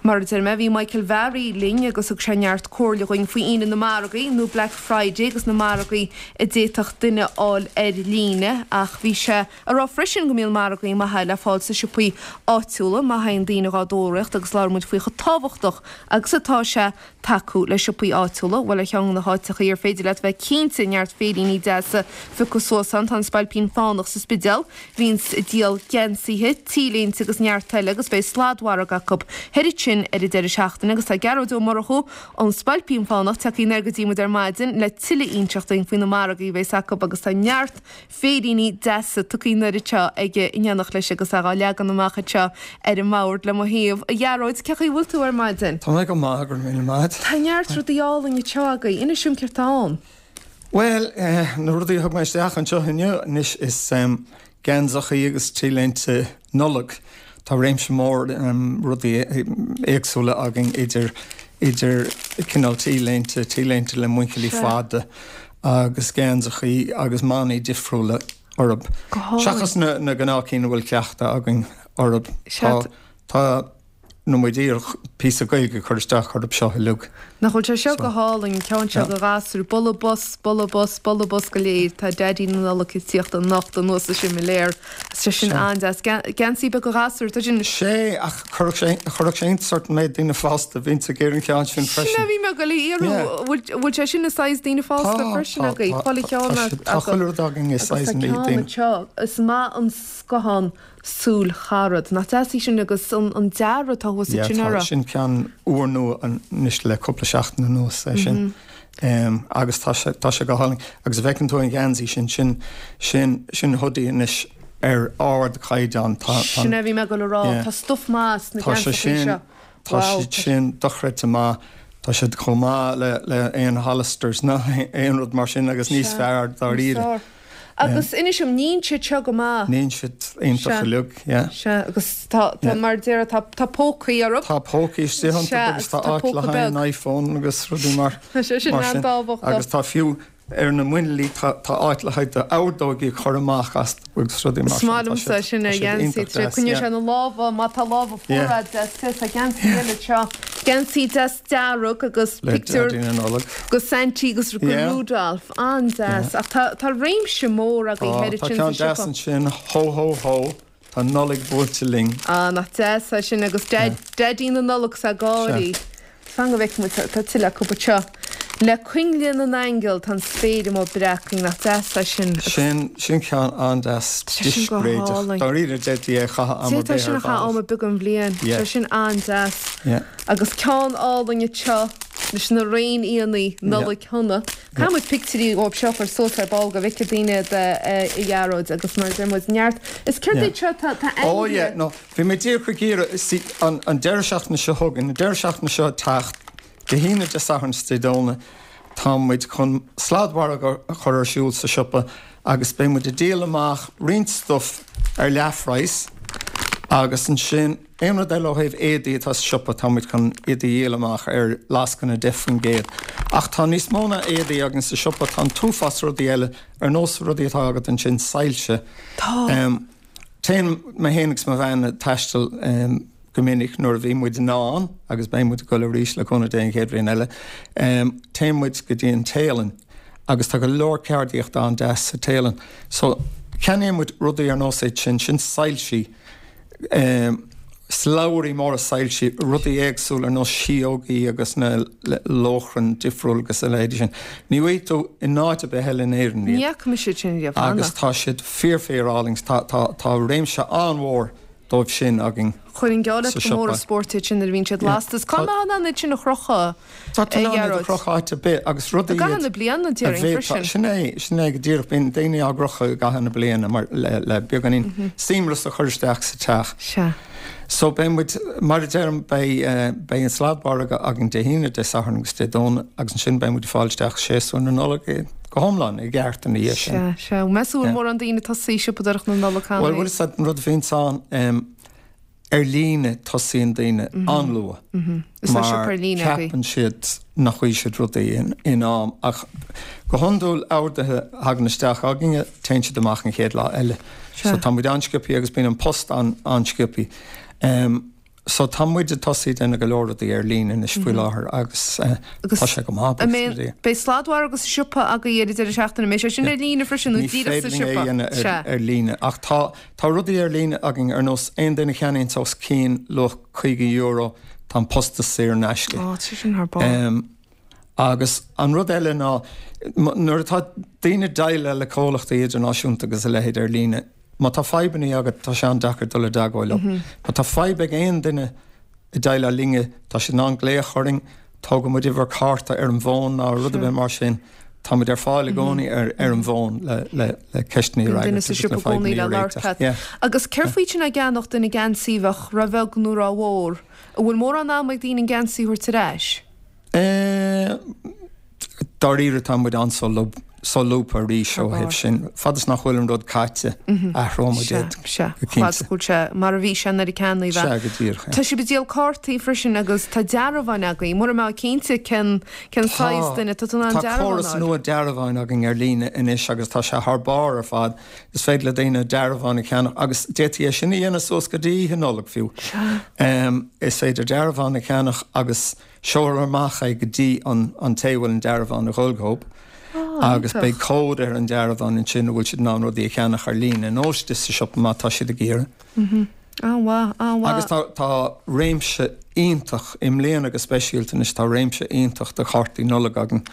Mar a deir mé, bhí Michael Bharry linn agus thug sé neart comhairle dhuinn faoi Aoine na Margaí, nó Black Friday agus na margaí a d'fhéadfadh duine a fháil ar líne ach bhí sé a rá freisin go mbíonn margaí maithe le fáil sna siopaí áitiúla má théann daoine dhá dtóraíocht agus labhair muid faoi chomh tábhachtach agus atá sé tacú le siopaí áitiúla. Bhuel ar cheann de na háiteachaí ar féidir leat bheith cinnte neart féiríní deasa a phiocadh suas ann tá an Spailpín Fánach sa Spidéal. Bhíonns ag díol geansaithe, T-léinte agus neart eile agus beidh sladmhargadh acu thoir ansin ar an deireadh seachtaine agus tá Gearóid Ó Murchú ón Spailpín Fánach tagtha anoir go dtí muid ar maidin le tuilleadh inseacht dúinn faoi na margaí a bheas acu agus tá neart féiríní deasa tugtha anoir anseo aige in éineacht leis agus é dhá leagan amach anseo ar an mbord le mo thaobh. A Ghearóid, cén chaoi a bhfuil tú ar maidin? Tá mé go maith, go raibh míle maith. Tá neart rudaí álainn anseo agaibh. Inis dom céard tá ann. Bhuel, na rudaí a thug mé isteach anseo inniu anois is geansachaí agus t-léinte Nollag. Tá réimse mór rudaí éagsúla againn idir idir cineál t-léinte, t-léinte le muinchillí fada agus geansachaí agus manaí difriúla orthu. Seachas na na gnáthchinn a bhfuil cleachtadh againn orthu. Tá tá Tá muid díreach píosa Gaeilge a chur isteach orthu seo uilig. Nach bhfuil sé seo go hálainn, an ceann seo do ghasúir, bualadh bos, bualadh bos, bualadh bos go léir, tá Daidí na Nollag ag tíocht anocht anuas an similéar. Tá sé sin an-deas. Geansaí beag do ghasúir, tá sin. Sé, ach chuirfeadh sé, chuirfeadh sé iontas ort an méid daoine fásta a bhíonns ag iarraidh an cheann sin freisin. Sin é a bhí mé ag dul a iarraidh, bhfuil sé sin i size daoine fásta freisin agaibh? Tá, tá, tá, tá chuile rud againn i size daoine. Agus tá ceann anseo, is maith an scothán Súil Charad. Nach deas í sin agus an dearadh atá thuas ansin uirthi. Yeah, tá, sin ceann úrnua anois le cúpla seachtain anuas é sin. Agus tá sé, tá sé go hálainn. Agus a bhfeiceann tú an gheansaí sin, sin, sin, sin hoodie anois ar ardchaighdeán. Tá, tá. Sin é a bhí mé ag dul a rá. Yeah. Tá stuif maith sna geansachaí seo. Tá siad sin dochreidte maith. Tá siad chomh maith le, le aon Hollisters ná aon rud mar sin agus níos fearr dáiríre. Agus inis dom, níonn siad seo go maith. Níonn siad iontach uilig, yeah. Sea, agus tá, tá, mar a déarfá, tá, tá pócaí orthu. Tá pócaí istigh iontu agus tá áit le haghaidh an iPhone agus rudaí mar, Tá sé sin an-tábhachtach. Agus tá fiú ar na muinchillí, tá, tá áit le haghaidh d'ordóigí a chur amach as agus rudaí mar sin. Is maith liomsa sin ar gheansaí, tá sé, coinneoidh sé na lámha, má tá lámha fuara agat, deas, tá geansaí eile anseo, geansaí deas dearg agus pictiúr de Saintí agus de Rudolph. An-deas. Ach tá, tá réimse mór agaibh thoir ansin sa siopa. Tá ceann deas ansin, Ho ho ho, tá Nollaig buailte linn. Ah, nach deas é sin agus Daidí na Nollag is ag gáirí. Fan go bhfeicfidh muid, tá tuilleadh acu anseo. Le coinnle na n-aingeal tá an spéir amuigh breacaing, nach deas é sin. Sin, sin ceann an-deas, discréideach. Dáiríre, d'fhéadfaí é a chaitheamh am ar bith ar bhealach. D'fhéadfá sin a chaitheamh am ar bith den bhliain. Tá sin an-deas. Agus ceann álainn anseo leis na réinfhianna, Nollaig Shona. Caithfidh muid pictiúirí dhóibh seo a chur suas ar ball go bhfeicfidh daoine iad a Ghearóid agus mar a deir muid neart. Is céard iad seo? Tá ainmhithe. Oh yeah, no, bhí mé díreach ag iarraidh, see, an deireadh seachtaine seo chugainn, an deireadh seachtaine seo ag teacht, Dé hAoine, Dé Sathairn is Dé Domhnaigh, tá muid chun sladmhargadh a chur ar siúl sa siopa agus beidh muid ag díol amach roinnt stuif ar leathphraghas agus ansin aon rud eile ó thaobh éadaí atá sa siopa tá muid chun iad a dhíol amach ar lascaine 10%. Ach tá níos mó ná éadaí againn sa siopa, tá an t-uafás rudaí eile ar nós rudaí atá agat ansin, soilse. Tá. Téann mé féin agus mo bhean ag taisteal go minic nuair a bhí muid in ann, agus beidh muid ag dul arís le cúnamh Dé an chéad bhliain eile, téann muid go dtí an Téalainn agus tá go leor ceardaíochta an-deas sa Téalainn. So, ceannaíonn muid rudaí ar nós iad sin, sin soilsí, slabhraí móra soilsí, rudaí éagsúla ar nós síógaí agus na lóchrainn difriúil agus a leithéidí sin. Ní bhfaighidh tú in áit ar bith eile in Éirinn iad. Ní fhaca mise iad sin riamh cheana. Agus tá siad fíor fíor álainn. Tá tá tá réimse an-mhór dóibh sin againn Chuirfinn geall leat sa gur mór an siopa. spórt iad sin nuair a bhíonn siad lasta. Is cá mbeifeá in ann iad sin a chrochadh? Tá tú in ann iad a chrochadh áit ar bith agus rudaí I gcaitheamh na bliana, a déarfainn, freisin. Sin é, sin é go díreach. Bíonn daoine á gcrochadh i gcaitheamh na bliana mar le, le beagáinín seamras a chur isteach sa teach. Sea. So beidh muid, mar a deirim, beidh, beidh an sladmhargadh againn Dé hAoine, Dé Sathairn agus Dé Domhnaigh agus ansin beidh muid ag fáil isteach séasúr na Nollag go hiomlán i gceart ina dhiaidh sin. Sea, sea. Meas tú an bhfuil mórán daoine ag tosaí siopadóireacht na Nollag cheana Bhuel, bhfuil a fhios agat an rud a bhíonns ann, Ar líne, tosaíonn daoine an-luath mar ceapann siad nach bhfaighidh siad rudaí in am ach go hiondúil orduithe a thagann isteach againne, téann siad amach an chéad lá eile. So tá muid an-sciobtha agus bíonn an post an-sciobtha. So tá muid ag tosaí ag déanamh go leor rudaí ar líne anois faoi láthair agus tá sé go maith, buíochas le Dia. Beidh sladmhargadh sa siopa agaibh ar an deireadh seachtaine, an mbeidh sé sin ar líne freisin nó díreach sa siopa? Ní féidir linn é a dhéanamh ar líne ach tá tá rudaí ar líne againn ar nós aon duine a cheannaíonns os cionn luach €50 tá an postas saor in aisce. Á, tá sé sin thar barr. Agus an rud eile ná nuair atá daoine ag déileáil le comhlachtaí idirnáisiúnta agus a leithéid ar líne, Má tá fadhbanna agat, tá sé an-deacair dul i dteagmháil leo. Má tá fadhb ag aon duine ag déileáil linne, tá siad in ann glaoch orainn, tógfaidh muid uimhir cárta ar an bhfón ná rud ar bith mar sin. Tá muid ar fáil i gcónaí ar an bhfón le ceisteanna a fhreagairt agus le fadhbanna a réiteach. Agus céard faoi sin ag ceannach duine geansaí a bheadh ró-bheag nó ró-mhór? An bhfuil mórán ama ag daoine an geansaí a thabhairt ar ais? Dáiríre tá muid an-solúbtha arís ó thaobh sin. Fad is nach bhfuil an rud caite, athróidh muid é go cinnte. Fad is go bhfuil sé mar a bhí sé nuair a ceannaíodh é. Sea, go díreach. Tá sibh ag díol cártaí freisin agus tá dearbháin agaibh. Mura mbeifeá cinnte cén cén saghas duine, tá tú in ann dearbhán a fháil. Tá córas nua dearbháin againn ar líne anois agus tá sé thar barr ar fad. Is féidir le daoine dearbhán a cheannach agus d'fhéadfaí é sin a dhéanamh suas go dtí Oíche Nollag fiú. Is féidir dearbhán a cheannach agus seolfar amach é go dtí an té a bhfuil an dearbhán ag dhul dhób agus beidh cód ar an dearbhán ansin a bhfuil siad in ann rudaí a cheannach ar líne nó istigh sa siopa má tá siad ag iarraidh. An-mhaith, an-mhaith. Agus tá tá réimse iontach, i mbliana go speisialta anois, tá réimse iontach de chártaí Nollag againn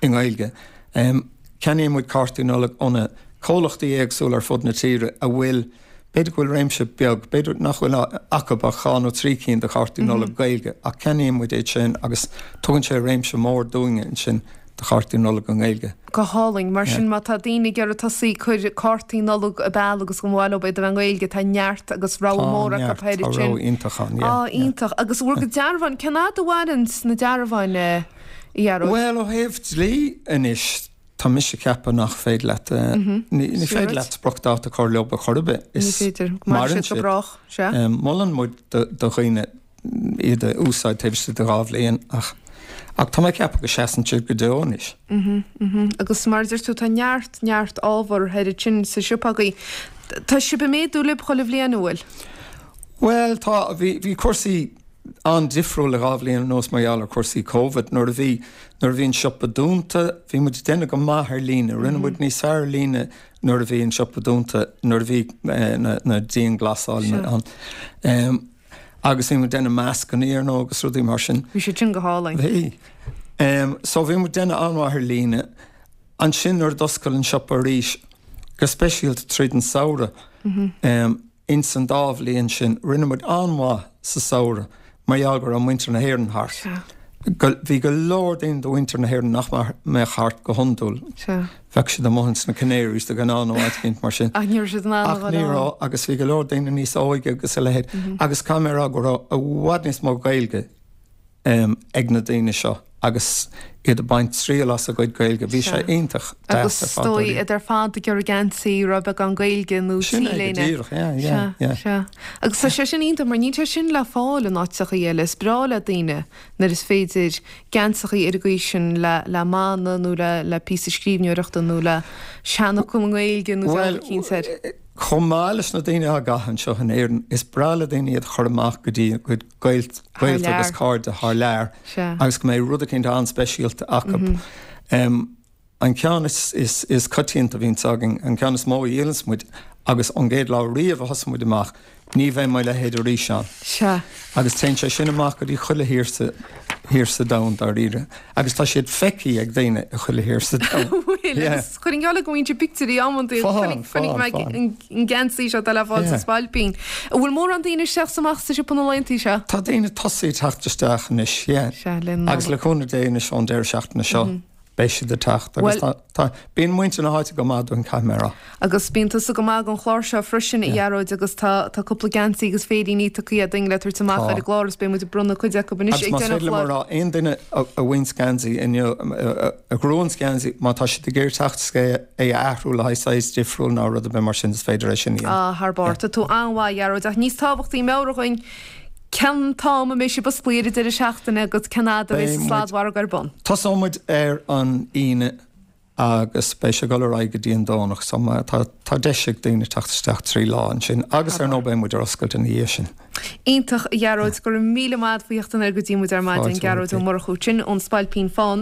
i nGaeilge. Ceannaíonn muid cártaí Nollag ó na comhlachtaí éagsúla ar fud na tíre a bhfuil, b'fhéidir go bhfuil réimse beag, b'fhéidir nach bhfuil acu ach 2 nó 3 cinn de chártaí Nollag Gaeilge, ach ceannaíonn muid iad sin agus tugann sé réimse mór dúinne ansin de chártaí Nollag i nGaeilge. Go hálainn. Mar sin má tá daoine ag iarraidh tosaí ag cur cártaí Nollag ar ball agus go mba mhaith leo iad a bheith i nGaeilge, tá neart agus rogha mór acu Tá neart, tá rogha iontach ann, yeah. Á, iontach. Agus bhur gcuid dearbháin, cén fhad a mhaireann na dearbháin, a Ghearóid? Bhuel, ó thaobh dlí anois, tá mise ag ceapadh nach féidir leat, ní féidir leat spriocdháta a chur leo ar chor ar bith. Ní féidir. Maireann siad go brách, sea. Molann muid do dhaoine iad a úsáid taobh istigh de 2 bhliain ach ach tá mé ag ceapadh go seasann siad go deo anois. Agus mar a deir tú, tá neart, neart ábhar thoir ansin sa siopa agaibh. Tá sibh ag méadú libh chuile bhliain, an bhfuil? Bhuel, tá, bhí, bhí cúrsaí an-difriúil le 2 bhliain anuas mar gheall ar chúrsaí Covid. Nuair a bhí, nuair a bhí an siopa dúnta, bhí muid ag déanamh go maith ar líne. Rinne muid níos fearr ar líne nuair a bhí an siopa dúnta, nuair a bhí na, na dianghlasáil ann. Agus bhí muid ag déanamh mascannaí ar ndóigh agus rudaí mar sin. Bhí siad sin go hálainn. Bhí. So bhí muid ag déanamh an-mhaith ar líne. Ansin nuair a d'oscail an siopa arís, go speisialta tríd an samhradh, Ins an dá bhliain sin, rinne muid an-mhaith sa samhradh mar gheall go raibh muintir na hÉireann thart. Bhí go leor daoine de mhuintir na hÉireann nach mbeadh thart go hiondúil. Bheadh siad amuigh ins na Canaries de ghnáth nó áit éicint mar sin. Ach ní raibh siad in ann a dhul ann. Ach ní raibh, agus bhí go leor daoine níos óige agus a leithéid. Agus caithfidh mé a rá go raibh i bhfad níos mó Gaeilge ag na daoine seo agus iad ag baint triail as a gcuid Gaeilge. Bhí sé iontach deas ar fad. Agus is dóigh iad ar fad ag iarraidh geansaí a raibh beagán Gaeilge nó Sin é go T-léine. díreach, yeah, yeah, yeah. Sea, sea. Agus tá sé sin iontach mar níl sé sin le fáil in áiteachaí eile. Is breá le daoine nuair is féidir geansachaí ar an gcaoi sin le le mana nó le le píosa scríbhneoireachta nó le seanfhocal i nGaeilge nó dealbh eicínt air. Chomh maith leis na daoine á gcaitheamh anseo in Éirinn, is breá le daoine iad a chur amach go dtí a gcuid gaolta agus cairde thar lear agus go mbeidh rud eicínt an-speisialta acu. An ceann is coitianta a bhíonns againn, an ceann is mó a dhíolanns muid agus ón gcéad lá riamh a thosaigh muid amach, ní bheidh mo leithéid arís ann. Agus téann sé sin amach go dtí chuile thír sa thír sa domhan dáiríre. Agus tá siad feicthe ag daoine i chuile thír sa domhan. Bhfuil, agus chuirfinn geall go mbíonn siad pictiúirí amantaí Faigheann, chonaic mé faigheann. an geansaí seo atá le fáil sa Spailpín. An bhfuil mórán daoine isteach is amach sa siopa na laethantaí seo? Tá daoine ag tosaí ag teacht isteach anois, yeah. Sea, le Nollaig. Agus le cúnamh Dé anois ón deireadh seachtaine seo. Beidh siad ag teacht agus tá, tá, bíonn muintir na háite go maith dúinn, caithfidh mé a rá. Agus bíonn tusa go maith don chlár seo freisin, a Ghearóid, agus tá, tá cúpla geansaí agus féiríní tugtha againn le tabhairt amach ar an gclár agus beidh muid ag bronnadh cuid acu anois ag deireadh an chláir. Agus más féidir liom a rá, aon duine a bhain geansaí inniu, a ghnóthaíonn geansaí, má tá siad ag iarraidh teacht is é a athrú le haghaidh saghas difriúil nó rud ar bith mar sin, is féidir é sin a dhéanamh. Ah, thar barr. Tá tú an-mhaith, a Ghearóid, ach níos tábhachtaí, meabhraigh dhúinn, Cén t-am a mbeidh sibh osclaithe ar an deireadh seachtaine agus cén fhad a bheidh an sladmhargadh ar bun? Tosóidh muid ar an Aoine. Agus beidh sé ag dul ar aghaidh go dtí an Domhnach so má tá tá deis ag daoine teacht isteach 3 lá ansin agus ar ndóigh beidh muid ar oscailt ina dhiaidh sin. Iontach, a Ghearóid, go raibh míle maith agat faoi theacht anoir go dtí muid ar maidin. Gearóid Ó Murchú sin ón Spailpín Fánach.